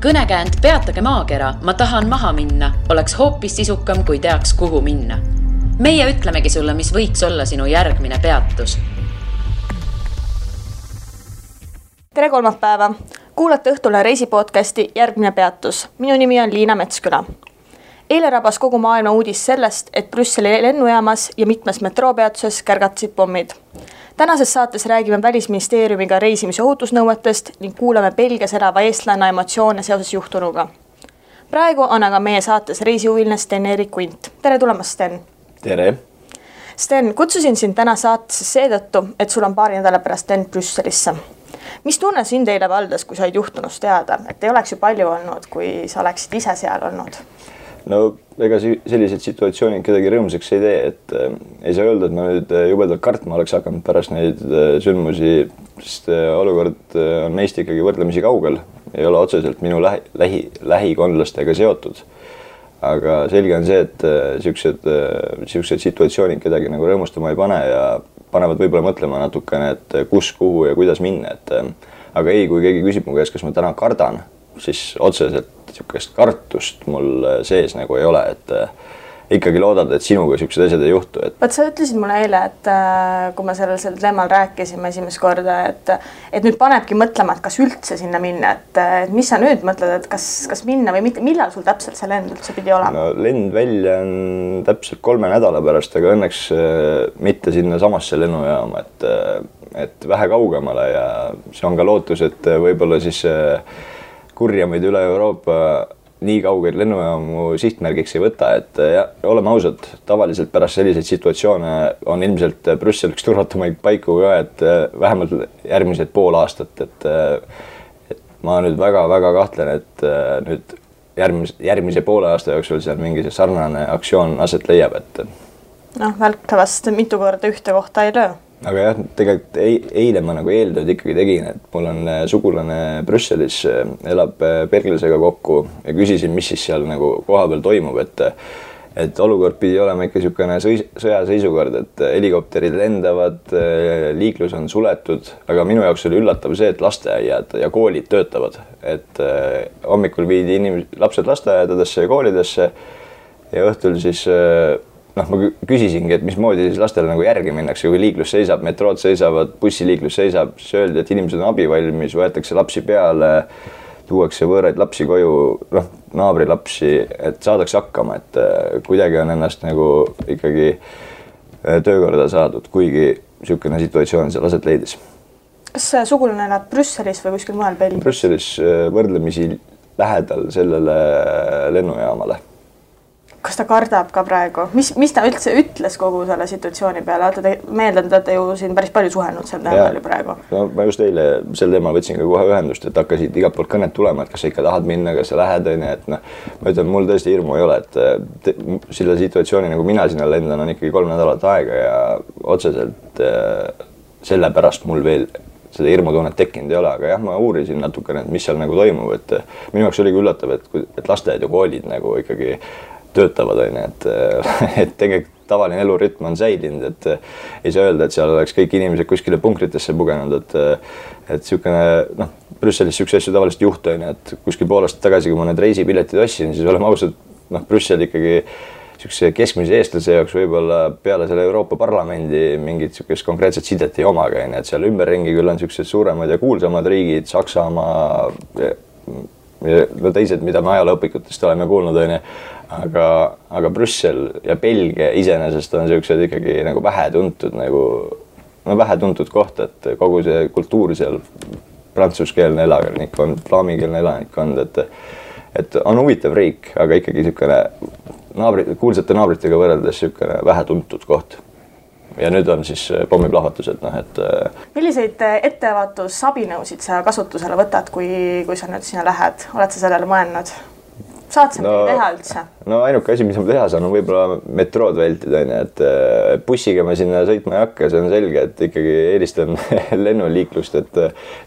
Kõnekäänd peatage maakera, ma tahan maha minna, oleks hoopis sisukam, kui teaks, kuhu minna. Meie ütlemegi sulle, mis võiks olla sinu järgmine peatus. Tere kolmapäeva! Kuulate õhtule reisipodcasti Järgmine peatus. Minu nimi on Liina Metsküla. Eile rabas kogu maailma uudis sellest, et Brüsseli lennujaamas ja mitmes metroopeatuses kärgatasid pommid. Tänases saates räägime Välisministeeriumiga reisimise ohutusnõuetest ning kuulame Belgias elava eestlanna emotsioone seoses juhtunuga. Praegu on aga meie saates reisihuviline Sten-Erik Quint. Tere tulemast, Sten! Tere! Sten, kutsusin sind täna saatesse seetõttu, et sul on paari nädala pärast lend Brüsselisse. Mis tunne sind eile valdas, kui said juhtunust teada? Et ei oleks ju palju olnud, kui sa oleksid ise seal olnud? No ega sellised situatsioonid kedagi rõõmsaks ei tee, et ei saa öelda, et ma nüüd jubedalt kartma oleks hakanud pärast neid sündmusi, sest olukord on meist ikkagi võrdlemisi kaugel, ei ole otseselt minu lähikondlastega seotud. Aga selge on see, et siuksed situatsioonid kedagi nagu rõõmustama ei pane ja panevad võib-olla mõtlema natukene, et kus, kuhu ja kuidas minna. Aga ei, kui keegi küsib mu käest, kas ma täna kardan, siis otseselt siukest kartust mul sees nagu ei ole, et ikkagi loodad, et sinuga siuksed asjad ei juhtu. Vaat sa ütlesid mulle eile, et kui me sellel teemal rääkisime esimest korda, et nüüd panebki mõtlema, et kas üldse sinna minna, et mis sa nüüd mõtled, et kas minna või mitte, millal sul täpselt see lend üldse pidi olema? No, lend välja on täpselt 3 nädala pärast, aga õnneks mitte sinna samasse lennujaama, et vähe kaugemale ja see on ka lootus, et võib-olla siis kurjamaid üle Euroopa nii kaugeid lennujaamu sihtmärgiks ei võta, et oleme ausad, tavaliselt pärast selliseid situatsioone on ilmselt Brüssel üks turvatumaid paiku ka, et vähemalt järgmised pool aastat, et ma nüüd väga kahtlen, et nüüd järgmise poole aasta jooksul seal mingi sarnane aktsioon aset leiab, et välkavast mitu korda ühte kohta ei löö. Aga jah, tegelikult eile ma nagu eeltööd ikkagi tegin, et mul on sugulane Brüsselis, elab Berglisega kokku ja küsisin, mis siis seal nagu kohapeal toimub, et olukord pidi olema ikka niisugune sõjaseisukord, et helikopterid lendavad, liiklus on suletud, aga minu jaoks oli üllatav see, et lasteaiad ja koolid töötavad, et hommikul viidi lapsed lasteaedadesse ja koolidesse ja õhtul siis ma küsisingi, et mismoodi siis lastele nagu järgi minnakse, kui liiklus seisab, metrood seisavad, bussiliiklus seisab, siis öeldi, et inimesed on abivalmis, võetakse lapsi peale, tuuakse võõraid lapsi koju, naabri lapsi, et saadakse hakkama, et kuidagi on ennast nagu ikkagi töökorda saadud, kuigi niisugune situatsioon seal aset leidis. Kas sugulane elab Brüsselis või kuskil mujal Belgias? Brüsselis võrdlemisi lähedal sellele lennujaamale. Kas ta kardab ka praegu? Mis ta üldse ütles kogu selle situatsiooni peale? Meeldan, et te ju siin päris palju suhelnud sel teemal praegu. No, ma just eile sel teemal võtsin ka kohe ühendust, et hakkasid igalt poolt kõnet tulema, et kas sa ikka tahad minna, kas sa lähed, et ma ütlen, mul tõesti hirmu ei ole, et selle situatsiooni, nagu mina sinna lendan, on ikkagi 3 nädalat aega ja otseselt selle pärast mul veel seda hirmutunnet tekkinud ei ole, aga jah, ma uurisin natukene, et mis seal nagu toimub, et minu jaoks oligi üllatav, et lasteaed ja koolid nagu ikkagi töötavad, et tegelikult tavaline elurütm on säilinud, et ei saa öelda, et seal oleks kõik inimesed kuskile punkritesse pugenud, et niisugune, Brüsselis niisuguse asju tavaliselt juhtu, et kuskil pool aastat tagasi, kui ma need reisipiletid ostsin, siis oleme ausad, Brüssel ikkagi niisuguse keskmise eestlase jaoks võib-olla peale selle Euroopa Parlamendi mingit niisugust konkreetset sidet ei omaga, et seal ümberringi küll on niisugused suuremad ja kuulsamad riigid, Saksamaa ja teised, mida me ajalooõpikutest oleme kuulnud, aga Brüssel ja Belgia iseenesest on niisugused ikkagi nagu vähetuntud koht, et kogu see kultuur seal, prantsuskeelne elanikkond, flaamikeelne elanikkond, et on huvitav riik, aga ikkagi niisugune kuulsate naabritega võrreldes niisugune vähetuntud koht. Ja nüüd on siis pommiplahvatused, et Milliseid ettevaatusabinõusid sa kasutusele võtad, kui sa nüüd sinna lähed? Oled sa sellele mõelnud? Saad sa midagi teha üldse? No ainuke asi, mis ma teha saan, on võib-olla metrood vältida, et bussiga ma sinna sõitma ei hakka, see on selge, et ikkagi eelistan lennuliiklust, et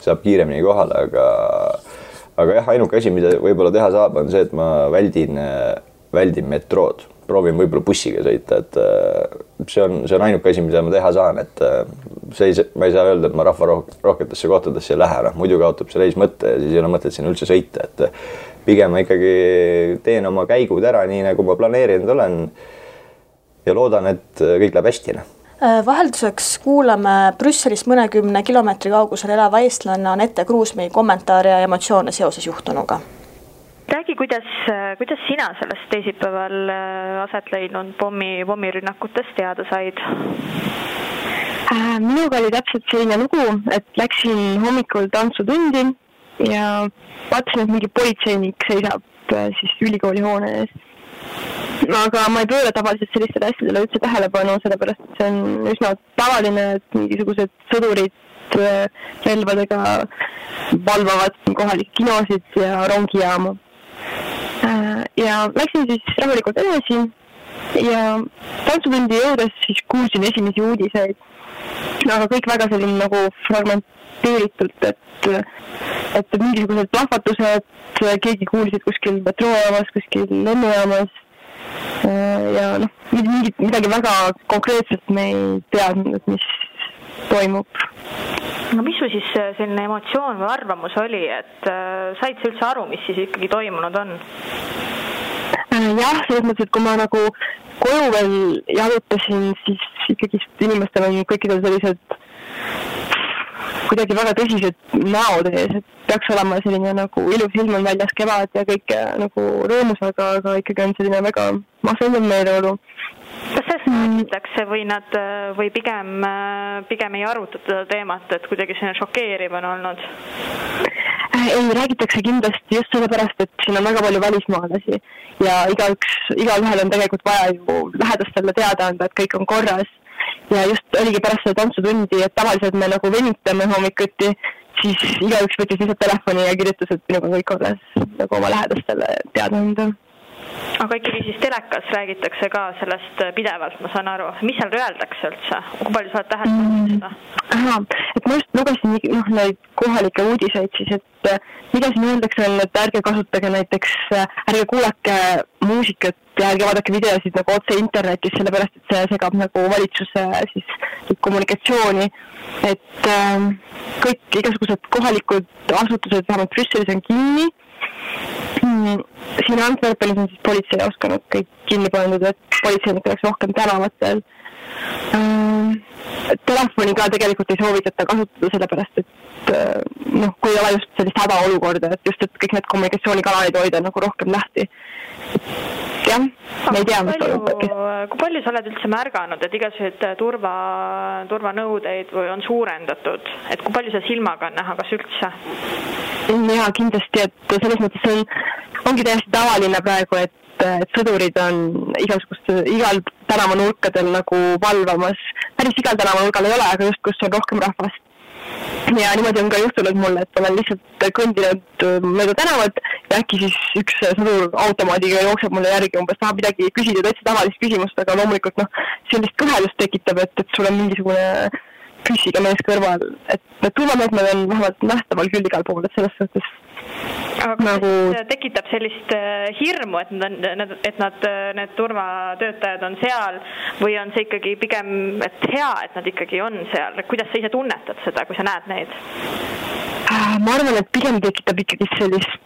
saab kiiremini kohale, aga jah, ainuke asi, mida võib-olla teha saab, on see, et ma väldin metrood. proovin võib-olla bussiga sõita, et see on ainuke asi, mida ma teha saan, et ma ei saa öelda, et ma rahvarohketesse kohtadesse ei lähe, muidu kaotab see reis mõtte ja siis ei ole mõtet sinna üldse sõita, et pigem ma ikkagi teen oma käigud ära nii, nagu ma planeerinud olen ja loodan, et kõik läheb hästi. Vahelduseks kuulame Brüsselist mõnekümne kilomeetri kaugusel elava eestlanna Anette Kruusmäe kommentaare ja emotsioone seoses juhtunuga. Räägi, kuidas sina sellest teisipäeval aset leidnud pommirünnakutest teada said? Minuga oli täpselt selline lugu, et läksin hommikul tantsutundi ja vaatasin, et mingi politseinik seisab siis ülikooli hoone ees. Aga ma ei pööra tavaliselt sellistele asjadele üldse tähelepanu, sellepärast et see on üsna tavaline, et mingisugused sõdurid relvadega valvavad kohalikke kinosid ja rongijaama. Ja läksin siis rahulikult edasi ja tantsutundi jõudes siis kuulsin esimesi uudiseid, aga kõik väga selline nagu fragmenteeritult, et mingisugused plahvatused, keegi kuulsid kuskil metroojaamas, kuskil lennujaamas ja midagi väga konkreetselt me ei teadnud, et mis toimub. No mis sul siis selline emotsioon või arvamus oli, et said sa üldse aru, mis siis ikkagi toimunud on? Jah, selles mõttes, et kui ma nagu koju veel jalutasin, siis ikkagi inimestel on kõikidel sellised kuidagi väga tõsised näod ees, et peaks olema selline nagu ilus ilm on väljas kevad ja kõik nagu rõõmus, aga ikkagi on selline väga masendav meeleolu. Kas sellest räägitakse või pigem ei arutata teemat, et kuidagi selline šokeeriv on olnud? Ei, räägitakse kindlasti just sellepärast, et siin on väga palju välismaalasi ja igalühel on tegelikult vaja ju lähedastele teada anda, et kõik on korras. Ja just oligi pärast seda tantsutundi, et tavaliselt me nagu venitame hommikuti, siis igaüks võttis lihtsalt telefoni ja kirjutas, et minuga kõik korras nagu oma lähedastele teada anda. Aga ikkagi siis telekas räägitakse ka sellest pidevalt, ma saan aru. Mis seal öeldakse üldse? Kui palju sa oled täheldanud seda? Et ma just lugesin neid kohalikke uudiseid siis, et mida siin öeldakse on, et ärge kasutage näiteks, ärge kuulake muusikat ja ärge vaadake videosid nagu otse internetis, sellepärast et see segab nagu valitsuse siis kommunikatsiooni. Et kõik igasugused kohalikud asutused, vähemalt Brüsselis on kinni. Siin Antwerpenis on siis politseijaoskonnad kõik kinni pandud, et politseinik oleks rohkem tänavatel. Telefoni ka tegelikult ei soovitata kasutada sellepärast, et kui ei ole just sellist hädaolukorda, et just, et kõik need kommunikatsioonikanalid hoida nagu rohkem lahti. Jah, me ei tea, mis toimub. Kui palju sa oled üldse märganud, et igasugused turvanõudeid on suurendatud, et kui palju sa silmaga on näha, kas üldse? Jaa, kindlasti, et selles mõttes ongi täiesti tavaline praegu, et sõdurid on igal tänavanurkadel nagu valvamas. Päris igal tänavanurgal ei ole, aga just kus on rohkem rahvast. Ja niimoodi on ka juhtunud mulle, et olen lihtsalt kõndinud mööda tänavat ja äkki siis üks sõdur automaadiga jookseb mulle järgi umbes tahab midagi küsida, täitsa tavalist küsimust, aga loomulikult sellist kõhelust tekitab, et sul on mingisugune püssiga mees kõrval, et need turvameetmed on vähemalt nähtaval küll igal pool, et selles suhtes. Aga nagu tekitab sellist hirmu, et need turvatöötajad on seal või on see ikkagi pigem et hea, et nad ikkagi on seal? Kuidas sa ise tunnetad seda, kui sa näed neid? Ma arvan, et pigem tekitab ikkagi sellist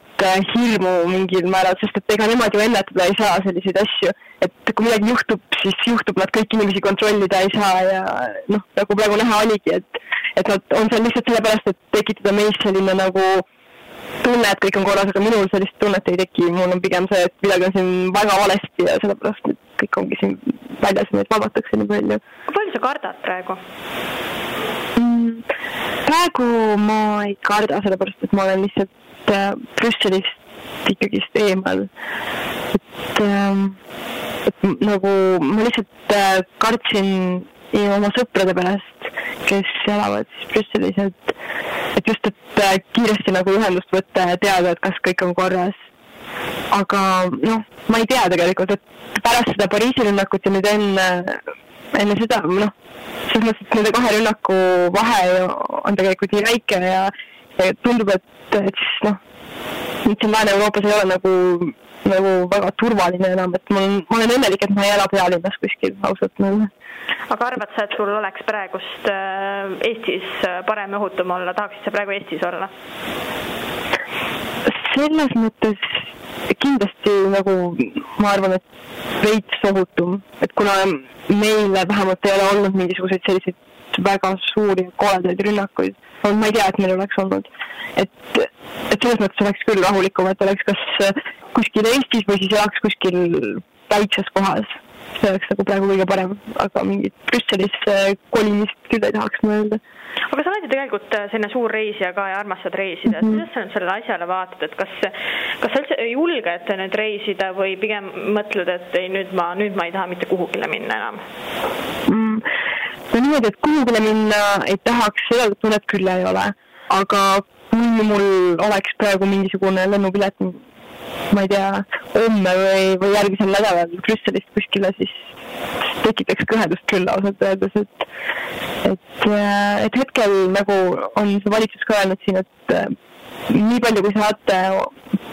hirmu mingil määral, sest et ega nemad ju ennetada ei saa selliseid asju. Et kui midagi juhtub, siis juhtub, nad kõik inimesi kontrollida ei saa ja nagu praegu näha oligi, et nad on seal lihtsalt sellepärast, et tekitada meis selline nagu tunne, et kõik on korras, aga minul sellist tunnet ei teki. Mul on pigem see, et midagi on siin väga valesti ja sellepärast et kõik ongi siin väljas ja neid valvatakse nii palju. Kui palju sa kardad praegu? Praegu ma ei karda, sellepärast et ma olen lihtsalt Brüsselist ikkagist eemal. Et nagu ma lihtsalt kartsin oma sõprade pärast, kes elavad siis Brüsselis, et just, et kiiresti nagu ühendust võtta ja teada, et kas kõik on korras. Aga ma ei tea tegelikult, et pärast seda Pariisi rünnakut ja nüüd enne seda, selles mõttes, et nende kahe rünnaku vahe on tegelikult nii väike ja tundub, et siis nüüd siin Lääne-Euroopas ei ole nagu väga turvaline enam, et ma olen õnnelik, et ma ei ela pealinnas kuskil ausalt nagu. Aga arvad sa, et sul oleks praegust Eestis parem õhutum olla? Tahaksid sa praegu Eestis olla? Selles mõttes kindlasti nagu ma arvan, et veits ohutum, et kuna meile vähemalt ei ole olnud mingisuguseid selliseid väga suuri koledaid rünnakuid, ma ei tea, et meil oleks olnud, et selles mõttes oleks küll rahulikum, et oleks kas kuskil Eestis või siis elaks kuskil väikses kohas. See oleks nagu praegu kõige parem, aga mingit Brüsselis kolimist küll ei tahaks ma öelda. Aga sa oled ju tegelikult selline suur reisija ka ja armastad reisida. Kuidas sa nüüd selle asjale vaatad, et kas sa üldse julged nüüd reisida või pigem mõtled, et ei, nüüd ma ei taha mitte kuhugile minna enam? No niimoodi, et kuhugile minna ei tahaks, seda tunnet küll ei ole. Aga kui mul oleks praegu mingisugune lennupilet, ma ei tea, homme või järgmisel nädalal Brüsselist kuskile, siis tekitaks kõhedust küll ausalt öeldes, et hetkel nagu on see valitsus ka öelnud siin, et nii palju kui saate,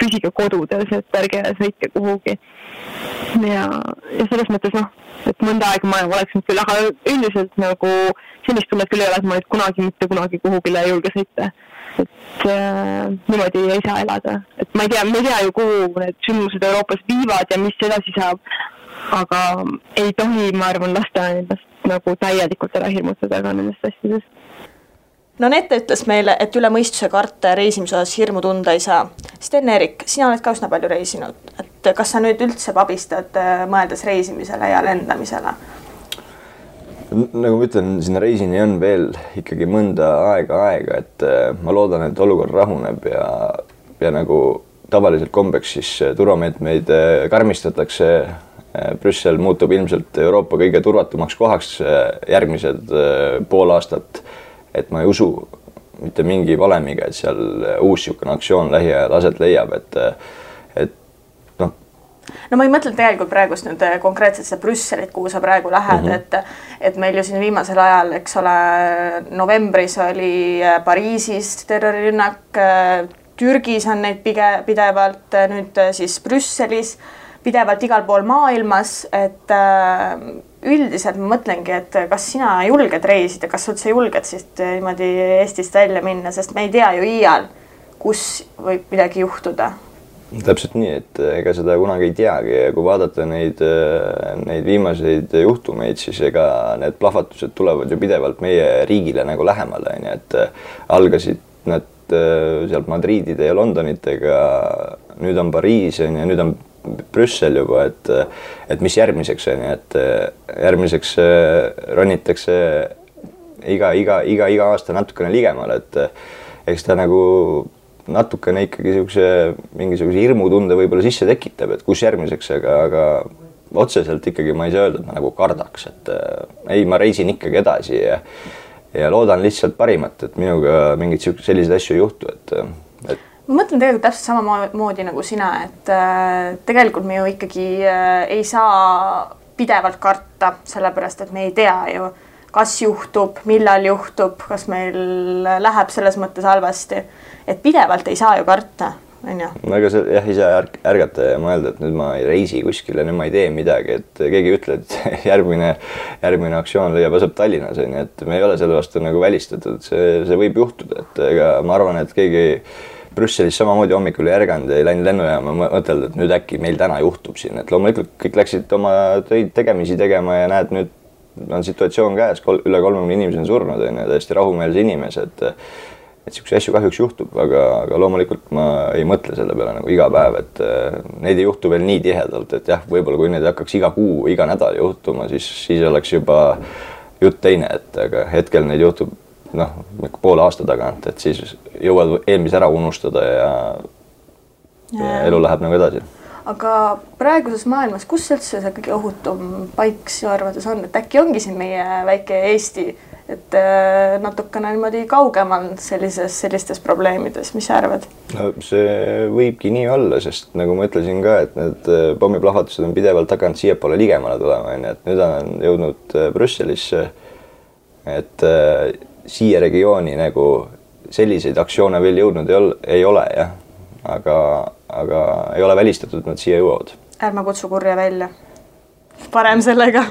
püsige kodudes, et ärge sõitke kuhugi. Ja selles mõttes et mõnda aega ma oleksin küll, aga üldiselt nagu sellist tunnet küll ei ole, et ma nüüd mitte kunagi kuhugile ei julge sõita. Et niimoodi ei saa elada. Et ma ei tea ju, kuhu need sündmused Euroopas viivad ja mis edasi saab, aga ei tohi, ma arvan, lasta endast nagu täielikult ära hirmutada ka nendest asjadest. No Nette ütles meile, et üle mõistuse karta ja reisimise osas hirmu tunda ei saa. Sten-Erik, sina oled ka üsna palju reisinud. Et kas sa nüüd üldse pabistad mõeldes reisimisele ja lendamisele? Nagu ma ütlen, sinna reisini on veel ikkagi mõnda aega, et ma loodan, et olukord rahuneb ja nagu tavaliselt kombeks siis turvameetmeid karmistatakse. Brüssel muutub ilmselt Euroopa kõige turvatumaks kohaks järgmised pool aastat, et ma ei usu mitte mingi valemiga, et seal uus niisugune aktsioon lähiajal aset leiab, et No ma ei mõtle tegelikult praegust nüüd konkreetselt seda Brüsselit, kuhu sa praegu lähed, et meil ju siin viimasel ajal, eks ole, novembris oli Pariisis terrorirünnak, Türgis on neid pidevalt, nüüd siis Brüsselis, pidevalt igal pool maailmas, et üldiselt ma mõtlengi, et kas sina julged reisida, kas üldse julged siis niimoodi Eestist välja minna, sest me ei tea ju iial, kus võib midagi juhtuda. Täpselt nii, et ega seda kunagi ei teagi ja kui vaadata neid viimaseid juhtumeid, siis ega need plahvatused tulevad ju pidevalt meie riigile nagu lähemale, et algasid nad sealt Madridide ja Londonitega, nüüd on Pariis ja nüüd on Brüssel juba, et mis järgmiseks on, et järgmiseks ronitakse iga aasta natukene ligemale, et eks ta nagu natukene ikkagi mingisuguse hirmutunde võib-olla sisse tekitab, et kus järgmiseks, aga otseselt ikkagi ma ei saa öelda, et ma nagu kardaks, et ei, ma reisin ikkagi edasi ja loodan lihtsalt parimat, et minuga mingid sellised asju ei juhtu, et ma mõtlen tegelikult täpselt samamoodi nagu sina, et tegelikult me ju ikkagi ei saa pidevalt karta, sellepärast, et me ei tea ju, kas juhtub, millal juhtub, kas meil läheb selles mõttes halvasti. Et pidevalt ei saa ju karta, on ju? Aga ei saa ärgata ja mõelda, et nüüd ma ei reisi kuskile, nüüd ma ei tee midagi, et keegi ütleb, et järgmine aktsioon leiab aset Tallinnas, et me ei ole selle vastu nagu välistatud, see võib juhtuda, et ega ma arvan, et keegi Brüsselis samamoodi hommikul ei ärganud ja ei läinud lennujaama mõtelda, et nüüd äkki meil täna juhtub siin, et loomulikult kõik läksid oma töid tegemisi tegema ja näed, nüüd on situatsioon käes, üle 30 inimesi on surnud, täiesti rahumeelse inimese, et niisuguse asju kahjuks juhtub, aga loomulikult ma ei mõtle selle peale nagu iga päev, et neid ei juhtu veel nii tihedalt, et jah, võib-olla kui neid hakkaks iga kuu, iga nädal juhtuma, siis oleks juba jutt teine, et aga hetkel neid juhtub poole aasta tagant, et siis jõuad eelmise ära unustada ja elu läheb nagu edasi. Aga praeguses maailmas, kus üldse see kõige ohutum paik sinu arvates on, et äkki ongi siin meie väike Eesti, et natukene niimoodi kaugemal sellistes probleemides, mis sa arvad? No, see võibki nii olla, sest nagu ma ütlesin ka, et need pommiplahvatused on pidevalt hakanud siiapoole ligemale tulema, et nüüd on jõudnud Brüsselisse, et siia regiooni nagu selliseid aktsioone veel jõudnud ei ole, jah. aga ei ole välistatud, nad siia jõuavad. Ärme kutsu kurja välja. Parem sellega.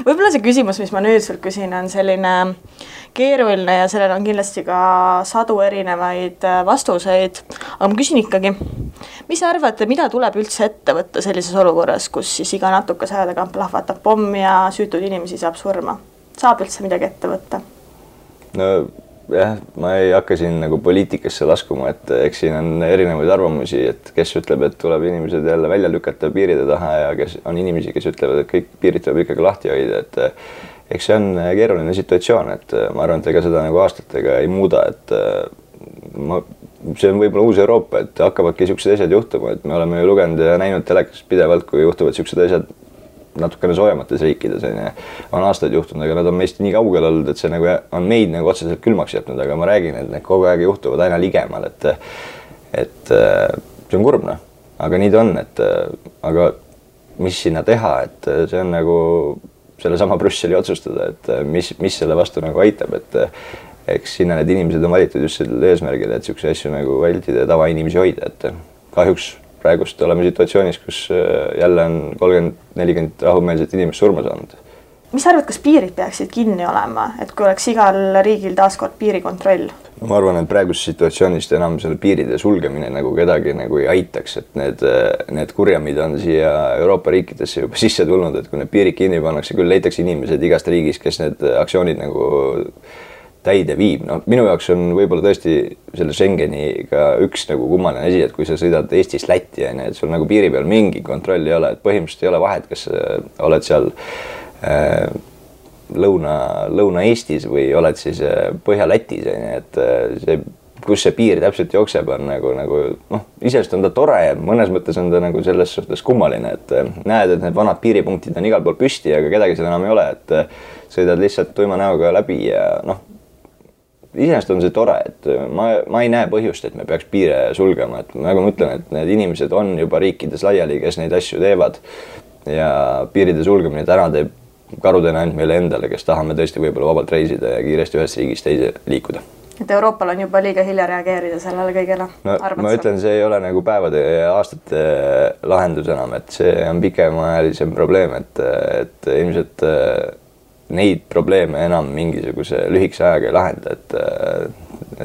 Võib-olla see küsimus, mis ma nüüd sult küsin, on selline keeruline ja sellel on kindlasti ka sadu erinevaid vastuseid. Aga ma küsin ikkagi, mis arvate, mida tuleb üldse ette võtta sellises olukorras, kus siis iga natukese aja tagant plahvatab pomm ja süütud inimesi saab surma? Saab üldse midagi ette võtta? No jah, ma ei hakka siin nagu poliitikasse laskuma, et eks siin on erinevaid arvamusi, et kes ütleb, et tuleb inimesed jälle välja lükata piiride taha ja kes on inimesi, kes ütlevad, et kõik piirid tuleb ikkagi lahti hoida, et eks see on keeruline situatsioon, et ma arvan, et ega seda nagu aastatega ei muuda, et see on võib-olla uus Euroopa, et hakkavadki niisugused asjad juhtuma, et me oleme ju lugenud ja näinud telekas pidevalt, kui juhtuvad niisugused asjad natukene soojamates riikides, on aastaid juhtunud, aga nad on meist nii kaugel olnud, et see nagu on meid nagu otseselt külmaks jätnud, aga ma räägin, et need kogu aeg juhtuvad aina ligemal, et see on kurb, aga nii ta on, aga mis sinna teha, et see on nagu sellesama Brüsseli otsustada, et mis selle vastu nagu aitab, et eks sinna need inimesed on valitud just sellel eesmärgil, et niisuguse asju nagu vältida ja tavainimesi hoida, et kahjuks praegust oleme situatsioonis, kus jälle on 30-40 rahumeelset inimest surma saanud. Mis arvad, kas piirid peaksid kinni olema, et kui oleks igal riigil taaskord piirikontroll? No, ma arvan, et praegust situatsioonist enam selle piiride sulgemine nagu kedagi nagu ei aitaks, et need kurjamid on siia Euroopa riikidesse juba sisse tulnud, et kui need piirid kinni pannakse, küll leitakse inimesed igast riigis, kes need aktsioonid nagu täide viib. No, minu jaoks on võib-olla tõesti selle Schengeniga üks nagu kummaline asi, et kui sa sõidad Eestist Lätti, et sul nagu piiri peal mingi kontroll ei ole, et põhimõtteliselt ei ole vahet, kas oled seal Lõuna-Eestis või oled siis Põhja-Lätis, et see, kus see piir täpselt jookseb, on nagu isest on ta tore ja mõnes mõttes on ta nagu selles suhtes kummaline, et näed, et need vanad piiripunktid on igal pool püsti, aga kedagi seal enam ei ole, et sõidad lihtsalt tuima näoga läbi ja iseenesest on see tore, et ma ei näe põhjust, et me peaks piire sulgema, et nagu ma ütlen, et need inimesed on juba riikides laiali, kes neid asju teevad ja piiride sulgemine täna teeb karudena ainult meile endale, kes tahame tõesti võib-olla vabalt reisida ja kiiresti ühest riigist teise liikuda. Et Euroopal on juba liiga hilja reageerida sellele kõigele? No, ma ütlen, see ei ole nagu päevade ja aastate lahendus enam, et see on pikemaajalisem probleem, et ilmselt neid probleeme enam mingisuguse lühikese ajaga ei lahenda,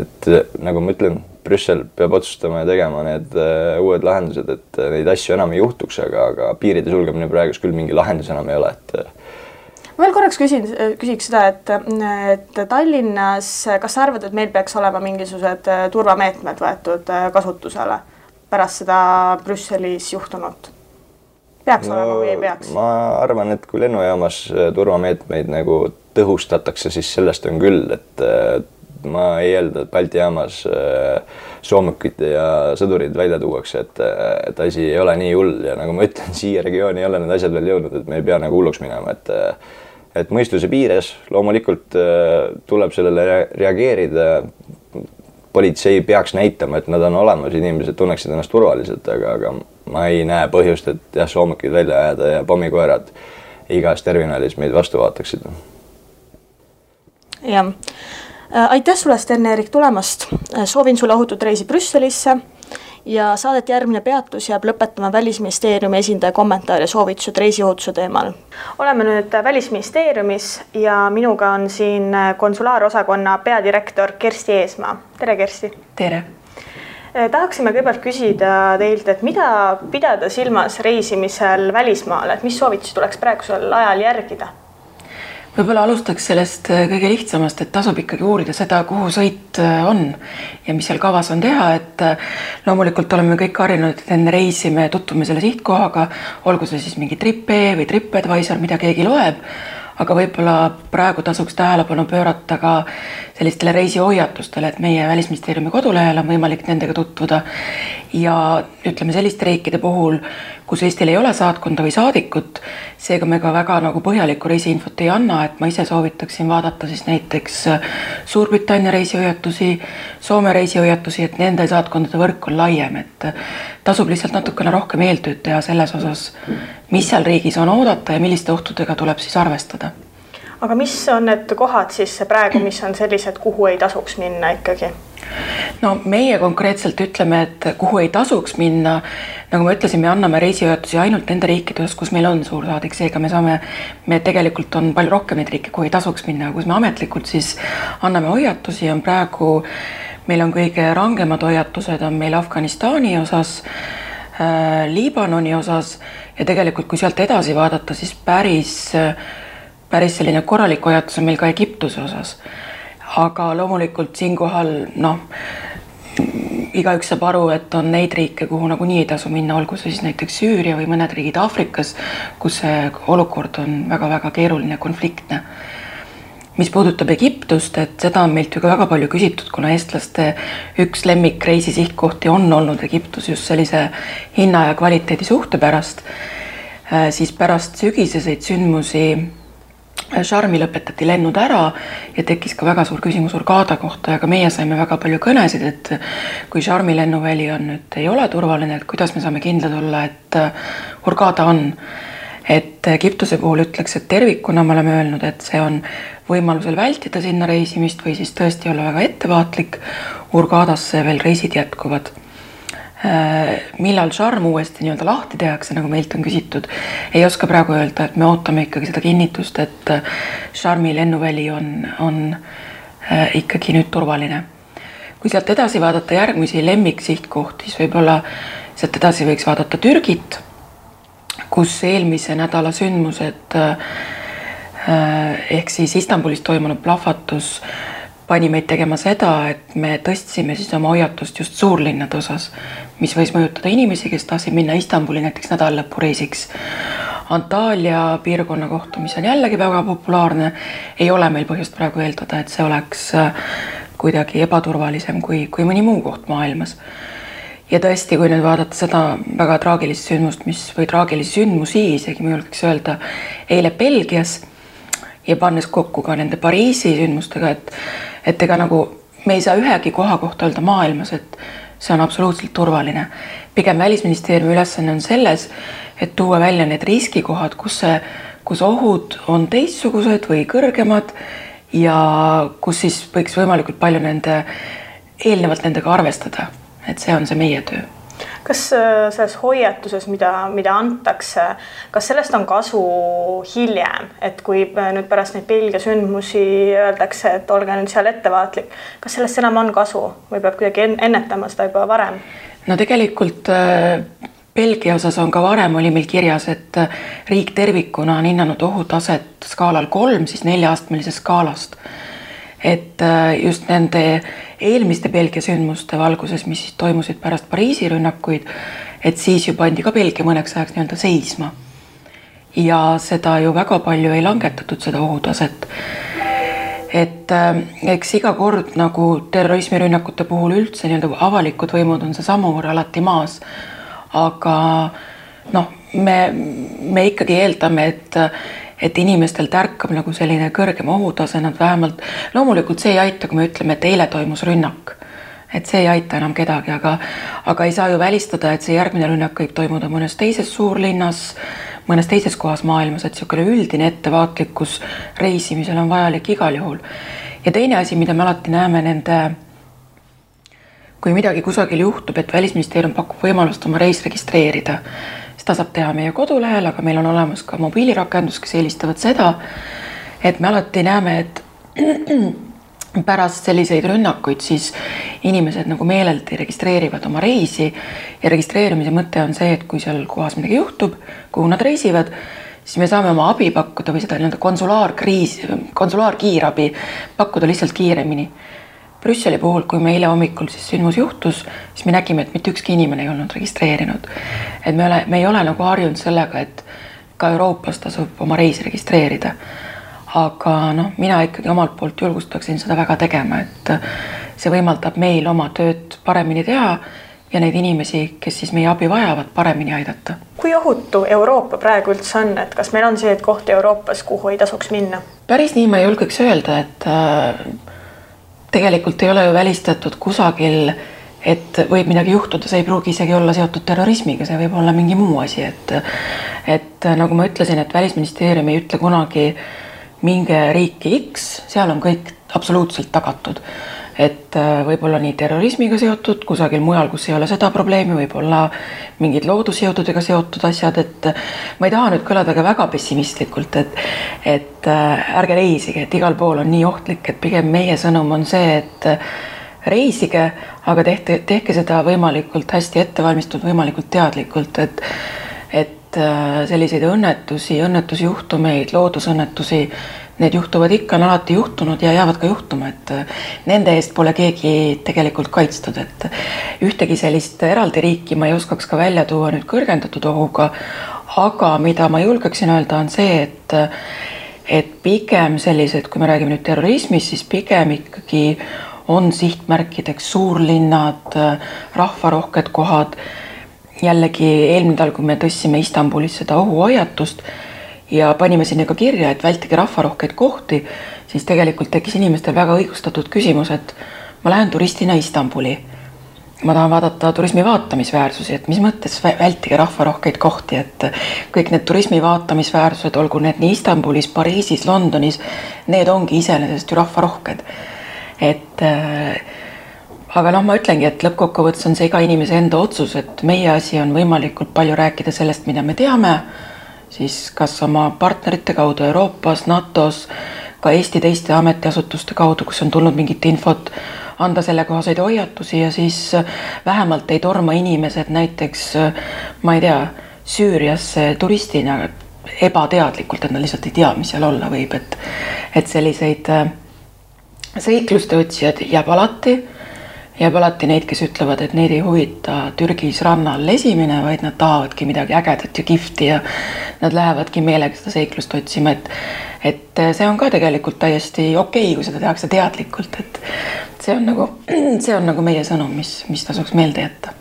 et nagu ma ütlen, Brüssel peab otsustama ja tegema need uued lahendused, et neid asju enam ei juhtuks, aga piiride sulgemine praegus küll mingi lahendus enam ei ole, Ma veel korraks küsiks seda, et Tallinnas, kas sa arvad, et meil peaks olema mingisugused turvameetmed võetud kasutusele pärast seda Brüsselis juhtunut? Peaks olema või ei peaks? Ma arvan, et kui lennujaamas turvameetmeid nagu tõhustatakse, siis sellest on küll, et ma ei eelda, et Balti jaamas soomukid ja sõdurid välja tuuakse, et asi ei ole nii hull ja nagu ma ütlen, siia regiooni ei ole need asjad veel jõudnud, et me ei pea nagu hulluks minema, et mõistuse piires loomulikult tuleb sellele reageerida. Politsei peaks näitama, et nad on olemas, inimesed tunneksid ennast turvaliselt, aga ma ei näe põhjust, et jah, soomukid välja ajada ja pommikoerad igas terminalis meid vastu vaataksid. Jah. Aitäh sulle, Sten-Erik, tulemast. Soovin sulle ohutut reisi Brüsselisse ja saadet järgmine peatus jääb lõpetama Välisministeeriumi esindaja kommentaar ja soovitused reisiohutuse teemal. Oleme nüüd Välisministeeriumis ja minuga on siin konsulaarosakonna peadirektor Kersti Eesmaa. Tere, Kersti! Tere! Tahaksime kõigepealt küsida teilt, et mida pidada silmas reisimisel välismaale, et mis soovitusi tuleks praegusel ajal järgida? Võib-olla alustaks sellest kõige lihtsamast, et tasub ikkagi uurida seda, kuhu sõit on ja mis seal kavas on teha, et loomulikult oleme kõik harjunud, et enne reisi me tutvume selle sihtkohaga, olgu see siis mingi TripE või TripAdvisor, mida keegi loeb, aga võib-olla praegu tasuks tähelepanu pöörata ka sellistele reisihoiatustele, et meie Välisministeeriumi kodulehel on võimalik nendega tutvuda ja ütleme selliste riikide puhul, kus Eestil ei ole saatkonda või saadikut, seega me ka väga nagu põhjalikku reisiinfot ei anna, et ma ise soovitaksin vaadata siis näiteks Suurbritannia reisihoiatusi, Soome reisihoiatusi, et nende saatkondade võrk on laiem, et tasub lihtsalt natukene rohkem eeltööd teha selles osas, mis seal riigis on oodata ja milliste ohtudega tuleb siis arvestada. aga mis on need kohad siis praegu, mis on sellised, kuhu ei tasuks minna ikkagi? No meie konkreetselt ütleme, et kuhu ei tasuks minna, nagu ma ütlesin, me anname reisihoiatusi ainult nende riikides, kus meil on suursaadik, seega me tegelikult on palju rohkem neid riike, kuhu ei tasuks minna, kus me ametlikult siis anname hoiatusi, on praegu, meil on kõige rangemad hoiatused, on meil Afganistani osas, Liibanoni osas ja tegelikult kui sealt edasi vaadata, siis päris selline korralik hoiatus on meil ka Egiptuse osas. Aga loomulikult siinkohal, igaüks saab aru, et on neid riike, kuhu nagunii ei tasu minna, olgu siis näiteks Süüria või mõned riigid Aafrikas, kus see olukord on väga-väga keeruline, konfliktne. Mis puudutab Egiptust, et seda on meilt ju ka väga palju küsitud, kuna eestlaste üks lemmikreisi sihtkohti on olnud Egiptus just sellise hinna ja kvaliteedi suhte pärast, siis pärast sügiseseid sündmusi Sharmi lõpetati lennud ära ja tekkis ka väga suur küsimus Hurghada kohta ja ka meie saime väga palju kõnesid, et kui Sharmi lennuväli on nüüd ei ole turvaline, et kuidas me saame kindlad olla, et Hurghada on. Et Egiptuse puhul ütleks, et tervikuna me oleme öelnud, et see on võimalusel vältida sinna reisimist või siis tõesti olla väga ettevaatlik. Hurghadasse veel reisid jätkuvad. Millal Sharm uuesti nii-öelda lahti tehakse, nagu meilt on küsitud, ei oska praegu öelda, et me ootame ikkagi seda kinnitust, et Sharmi lennuväli on ikkagi nüüd turvaline. Kui sealt edasi vaadata järgmisi lemmiksihtkohti, siis võib-olla sealt edasi võiks vaadata Türgit, kus eelmise nädala sündmused ehk siis Istanbulis toimunud plahvatus pani meid tegema seda, et me tõstsime siis oma hoiatust just suurlinnade osas, mis võis mõjutada inimesi, kes tahtsid minna Istanbuli näiteks nädallõpureisiks. Antalya piirkonna kohta, mis on jällegi väga populaarne, ei ole meil põhjust praegu eeldada, et see oleks kuidagi ebaturvalisem kui mõni muu koht maailmas. Ja tõesti, kui nüüd vaadata seda väga traagilist sündmust, või traagilisi sündmusi, isegi ma julgeks öelda, eile Belgias ja pannes kokku ka nende Pariisi sündmustega, et ega nagu me ei saa ühegi koha kohta öelda maailmas, et see on absoluutselt turvaline. Pigem Välisministeeriumi ülesanne on selles, et tuua välja need riskikohad, kus ohud on teistsugused või kõrgemad ja kus siis võiks võimalikult palju eelnevalt nendega arvestada. Et see on see meie töö. Kas selles hoiatuses, mida antakse, kas sellest on kasu hiljem, et kui nüüd pärast neid Belgia sündmusi öeldakse, et olge nüüd seal ettevaatlik, kas sellest enam on kasu või peab kuidagi ennetama seda juba varem? No tegelikult Belgia osas on ka varem oli meil kirjas, et riik tervikuna on hinnanud ohutaset skaalal 3, siis 4-astmelisest skaalast. Et just nende eelmiste Belgia sündmuste valguses, mis toimusid pärast Pariisi rünnakuid, et siis ju pandi ka Belgia mõneks ajaks nii-öelda seisma. Ja seda ju väga palju ei langetatud seda ohutaset. Et eks iga kord nagu terrorismirünnakute puhul üldse nii-öelda avalikud võimud on see samur alati maas. Aga me ikkagi eeldame, et inimestel tärkab nagu selline kõrgem ohutase, nad vähemalt, loomulikult see ei aita, kui me ütleme, et eile toimus rünnak, et see ei aita enam kedagi, aga ei saa ju välistada, et see järgmine rünnak võib toimuda mõnes teises suurlinnas, mõnes teises kohas maailmas, et niisugune üldine ettevaatlikkus reisimisel on vajalik igal juhul. Ja teine asi, mida me alati näeme kui midagi kusagil juhtub, et Välisministeerium pakub võimalust oma reis registreerida, seda saab teha meie kodulehel, aga meil on olemas ka mobiilirakendus, kes eelistavad seda, et me alati näeme, et pärast selliseid rünnakuid siis inimesed nagu meeleldi registreerivad oma reisi ja registreerimise mõte on see, et kui seal kohas midagi juhtub, kuhu nad reisivad, siis me saame oma abi pakkuda või seda konsulaarkiirabi pakkuda lihtsalt kiiremini. Brüsseli puhul, kui me eile hommikul siis sündmus juhtus, siis me nägime, et mitte ükski inimene ei olnud registreerinud. Et me ei ole nagu harjunud sellega, et ka Euroopas tasub oma reisi registreerida. Aga mina ikkagi omalt poolt julgustaksin seda väga tegema, et see võimaldab meil oma tööd paremini teha ja neid inimesi, kes siis meie abi vajavad, paremini aidata. Kui ohutu Euroopa praegu üldse on, et kas meil on see kohti Euroopas, kuhu ei tasuks minna? Päris nii ma julgeks öelda, et tegelikult ei ole ju välistatud kusagil, et võib midagi juhtuda, see ei pruugi isegi olla seotud terrorismiga, see võib olla mingi muu asi, et nagu ma ütlesin, et Välisministeerium ei ütle kunagi, minge riiki X, seal on kõik absoluutselt tagatud. Et võib-olla nii terrorismiga seotud, kusagil mujal, kus ei ole seda probleemi, võib-olla mingid loodusjõududega seotud asjad, et ma ei taha nüüd kõlada ka väga pessimistlikult, et ärge reisige, et igal pool on nii ohtlik, et pigem meie sõnum on see, et reisige, aga tehke seda võimalikult hästi ettevalmistatud, võimalikult teadlikult, et selliseid õnnetusjuhtumeid, loodusõnnetusi, need juhtuvad ikka, on alati juhtunud ja jäävad ka juhtuma, et nende eest pole keegi tegelikult kaitstud, et ühtegi sellist eraldi riiki ma ei oskaks ka välja tuua nüüd kõrgendatud ohuga, aga mida ma julgeksin öelda on see, et pigem sellised, kui me räägime nüüd terrorismist, siis pigem ikkagi on sihtmärkideks suurlinnad, rahvarohked kohad. Jällegi eelmine nädal, kui me tõstsime Istanbulis seda ohuhoiatust ja panime sinna ka kirja, et vältige rahvarohkeid kohti, siis tegelikult tekkis inimestel väga õigustatud küsimus, et ma lähen turistina Istanbuli. Ma tahan vaadata turismi vaatamisväärsusi, et mis mõttes vältige rahvarohkeid kohti, et kõik need turismi vaatamisväärsused, olgu need nii Istanbulis, Pariisis, Londonis, need ongi iseenesest ju rahvarohked. Aga ma ütlengi, et lõppkokkuvõttes on see iga inimese enda otsus, et meie asi on võimalikult palju rääkida sellest, mida me teame, siis kas oma partnerite kaudu Euroopas, NATOs, ka Eesti teiste ametiasutuste kaudu, kus on tulnud mingit infot, anda selle kohaseid hoiatusi ja siis vähemalt ei torma inimesed näiteks, ma ei tea, Süüriasse turistina ebateadlikult, et nad lihtsalt ei tea, mis seal olla võib, et selliseid seikluste otsijad jääb alati neid, kes ütlevad, et neid ei huvita Türgis rannal lesimine, vaid nad tahavadki midagi ägedat ja kihvti ja nad lähevadki meelega seda seiklust otsima, et see on ka tegelikult täiesti okei, kui seda tehakse teadlikult, et see on nagu meie sõnum, mis tasuks meelde jätta.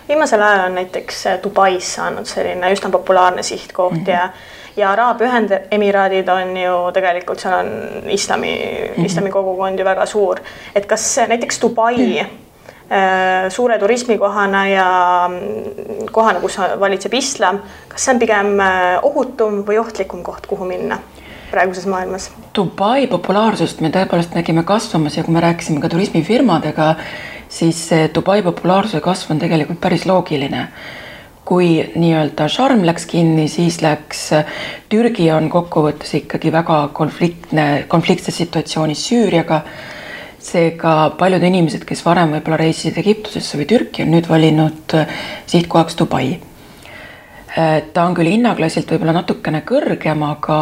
Viimasel ajal on näiteks Dubais saanud selline üsna populaarne sihtkoht ja Araabia Ühendemiraadid on ju tegelikult, seal on islami kogukond ju väga suur. Et kas näiteks Dubai suure turismikohana ja kohana, kus valitseb islam, kas see on pigem ohutum või ohtlikum koht, kuhu minna praeguses maailmas? Dubai populaarsust me tõepoolest nägime kasvamas ja kui me rääkisime ka turismifirmadega, siis Dubai populaarsuse kasv on tegelikult päris loogiline. Kui nii-öelda Sharm läks kinni, siis läks Türgi on kokkuvõttes ikkagi väga konfliktses situatsioonis Süüriaga. Seega paljud inimesed, kes varem võib-olla reisisid Egiptusesse või Türki, on nüüd valinud sihtkohaks Dubai. Ta on küll hinnaklassilt võib-olla natukene kõrgem, aga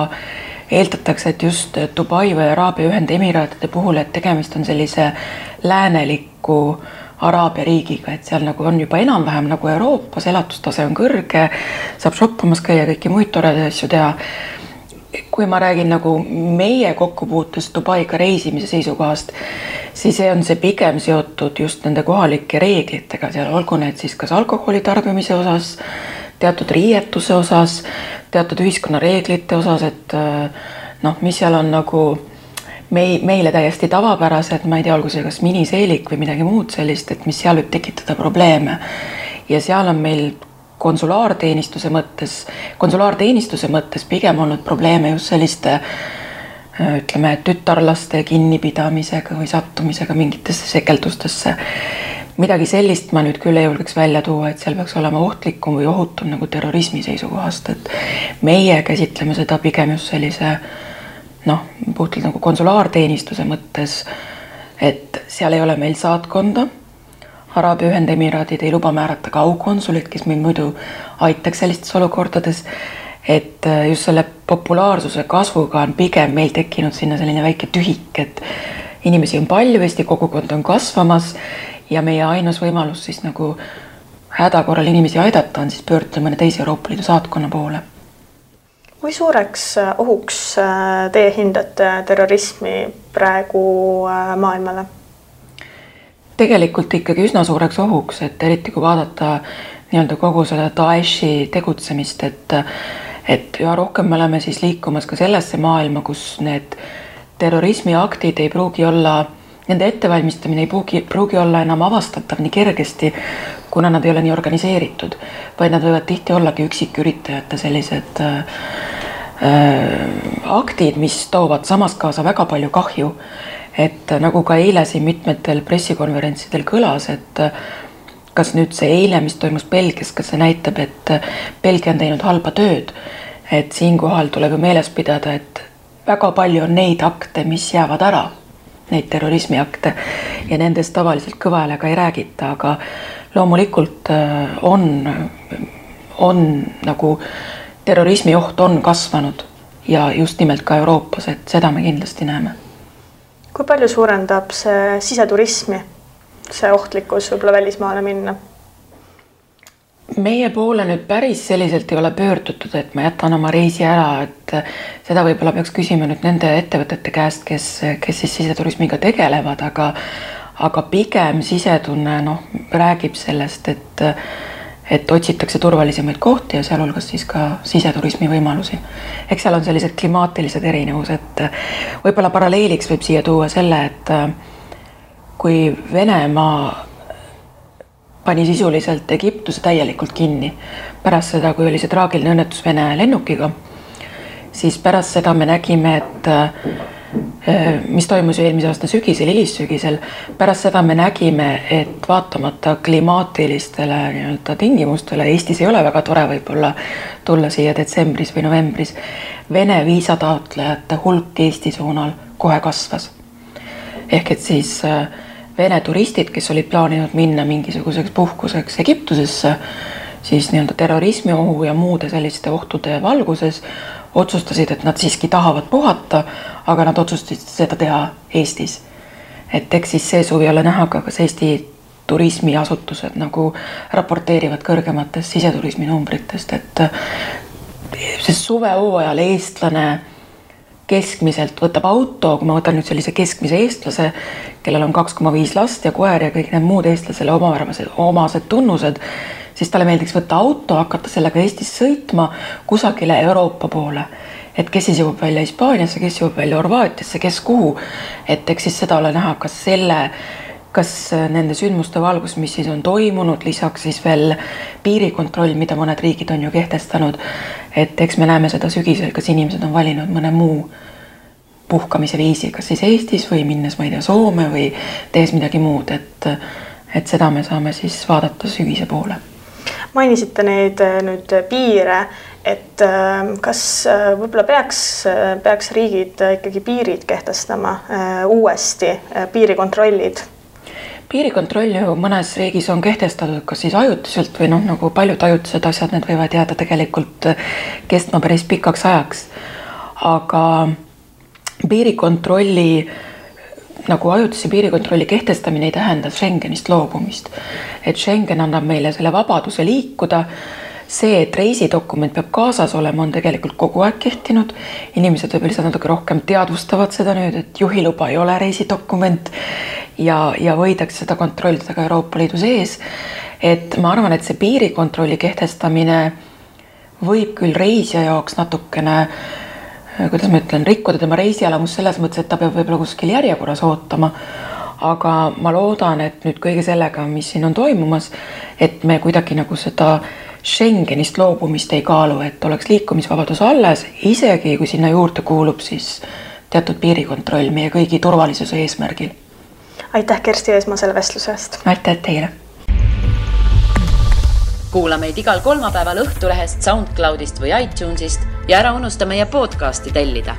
eeldatakse, et just Dubai või Araabia Ühendemiraatide puhul, et tegemist on sellise lääneliku Araabia riigiga, et seal nagu on juba enam-vähem nagu Euroopas, elatustase on kõrge, saab shoppamas käia kõiki muid toredaid asju teha. Kui ma räägin nagu meie kokkupuutust Dubaiga reisimise seisukohast, siis on see pigem seotud just nende kohalike reeglitega, seal olgu need siis kas alkoholi tarbimise osas, teatud riietuse osas, teatud ühiskonna reeglite osas, et mis seal on nagu meile täiesti tavapärased, ma ei tea, olgu see kas miniseelik või midagi muud sellist, et mis seal võib tekitada probleeme. Ja seal on meil konsulaarteenistuse mõttes pigem olnud probleeme just selliste, ütleme, tütarlaste kinnipidamisega või sattumisega mingitesse sekeldustesse. Midagi sellist ma nüüd küll ei julgeks välja tuua, et seal peaks olema ohtlikum või ohutum nagu terrorismi seisukohast, et meie käsitleme seda pigem just sellise puhtalt nagu konsulaarteenistuse mõttes, et seal ei ole meil saatkonda. Araabia Ühendemiraadid ei luba määrata ka aukonsulit, kes meil muidu aitaks sellistes olukordades, et just selle populaarsuse kasvuga on pigem meil tekkinud sinna selline väike tühik, et inimesi on palju, Eesti kogukond on kasvamas ja meie ainus võimalus siis nagu hädakorral inimesi aidata on siis pöörduda mõne teise Euroopa Liidu saatkonna poole. Kui suureks ohuks teie hindate terrorismi praegu maailmale? Tegelikult ikkagi üsna suureks ohuks, et eriti kui vaadata nii-öelda kogu seda Daeshi tegutsemist, et üha rohkem me oleme siis liikumas ka sellesse maailma, kus need terrorismiaktid ei pruugi olla, nende ettevalmistamine ei pruugi olla enam avastatav nii kergesti, kuna nad ei ole nii organiseeritud, vaid nad võivad tihti ollagi üksiküritajate sellised aktid, mis toovad samas kaasa väga palju kahju. Et nagu ka eile siin mitmetel pressikonverentsidel kõlas, et kas nüüd see eile, mis toimus Belgias, kas see näitab, et Belgia on teinud halba tööd. Et siinkohal tuleb ju meeles pidada, et väga palju on neid akte, mis jäävad ära, neid terrorismiakte ja nendest tavaliselt kõva häälega ei räägita, aga loomulikult on nagu terrorismi oht on kasvanud ja just nimelt ka Euroopas, et seda me kindlasti näeme. Kui palju suurendab see siseturismi, see ohtlikkus võib-olla välismaale minna? Meie poole nüüd päris selliselt ei ole pöördutud, et ma jätan oma reisi ära, et seda võib-olla peaks küsima nüüd nende ettevõtete käest, kes siis siseturismiga tegelevad, aga pigem sisetunne räägib sellest, et otsitakse turvalisemaid kohti ja sealhulgas siis ka siseturismi võimalusi. Eks seal on sellised klimaatilised erinevused. Võib-olla paralleeliks võib siia tuua selle, et kui Venemaa pani sisuliselt Egiptuse täielikult kinni pärast seda, kui oli see traagiline õnnetus Vene lennukiga, siis pärast seda me nägime, et mis toimus eelmise aasta sügisel, hilissügisel, pärast seda me nägime, et vaatamata klimaatilistele tingimustele, Eestis ei ole väga tore võib-olla tulla siia detsembris või novembris, Vene viisataotlejate hulk Eesti suunal kohe kasvas. Ehk et siis Vene turistid, kes olid plaaninud minna mingisuguseks puhkuseks Egiptusesse, siis terrorismi ohu ja muude selliste ohtude valguses otsustasid, et nad siiski tahavad puhata, aga nad otsustasid seda teha Eestis. Et eks siis see suvi ole näha ka, kas Eesti turismiasutused nagu raporteerivad kõrgematest siseturismi numbritest, et see suvehooajal eestlane keskmiselt võtab auto, kui ma võtan nüüd sellise keskmise eestlase, kellel on 2,5 last ja koer ja kõik need muud eestlasele omased tunnused, siis talle meeldiks võtta auto, hakata sellega Eestis sõitma kusagile Euroopa poole. Et kes siis jõuab välja Hispaaniasse, kes jõuab välja Horvaatiasse, kes kuhu. Et eks siis seda ole näha, kas nende sündmuste valgus, mis siis on toimunud, lisaks siis veel piirikontroll, mida mõned riigid on ju kehtestanud. Et eks me näeme seda sügisel, kas inimesed on valinud mõne muu puhkamise viisi, kas siis Eestis või minnes, ma ei tea, Soome või tehes midagi muud. Et seda me saame siis vaadata sügise poole. Mainisite neid nüüd piire, et kas võib-olla peaks riigid ikkagi piirid kehtestama uuesti, piirikontrollid? Piirikontroll ju mõnes riigis on kehtestatud kas siis ajutiselt või nagu paljud ajutised asjad, need võivad jääda tegelikult kestma päris pikaks ajaks. Aga piirikontrolli nagu ajutise piirikontrolli kehtestamine ei tähenda Schengenist loobumist. Et Schengen annab meile selle vabaduse liikuda. See, et reisidokument peab kaasas olema, on tegelikult kogu aeg kehtinud. Inimesed võib lihtsalt natuke rohkem teadvustavad seda nüüd, et juhiluba ei ole reisidokument ja võidakse seda kontrollida ka Euroopa Liidu sees. Et ma arvan, et see piirikontrolli kehtestamine võib küll reisija jaoks natukene kuidas ma ütlen, rikkuda tema reisielamus selles mõttes, et ta peab võib-olla kuskil järjekorras ootama, aga ma loodan, et nüüd kõige sellega, mis siin on toimumas, et me kuidagi nagu seda Schengenist loobumist ei kaalu, et oleks liikumisvabadus alles, isegi kui sinna juurde kuulub siis teatud piirikontroll meie kõigi turvalisuse eesmärgil. Aitäh Kersti Eesmaa selle vestluse eest. Aitäh teile. Kuula meid igal kolmapäeval Õhtulehest, SoundCloudist või iTunesist ja ära unusta meie podcasti tellida.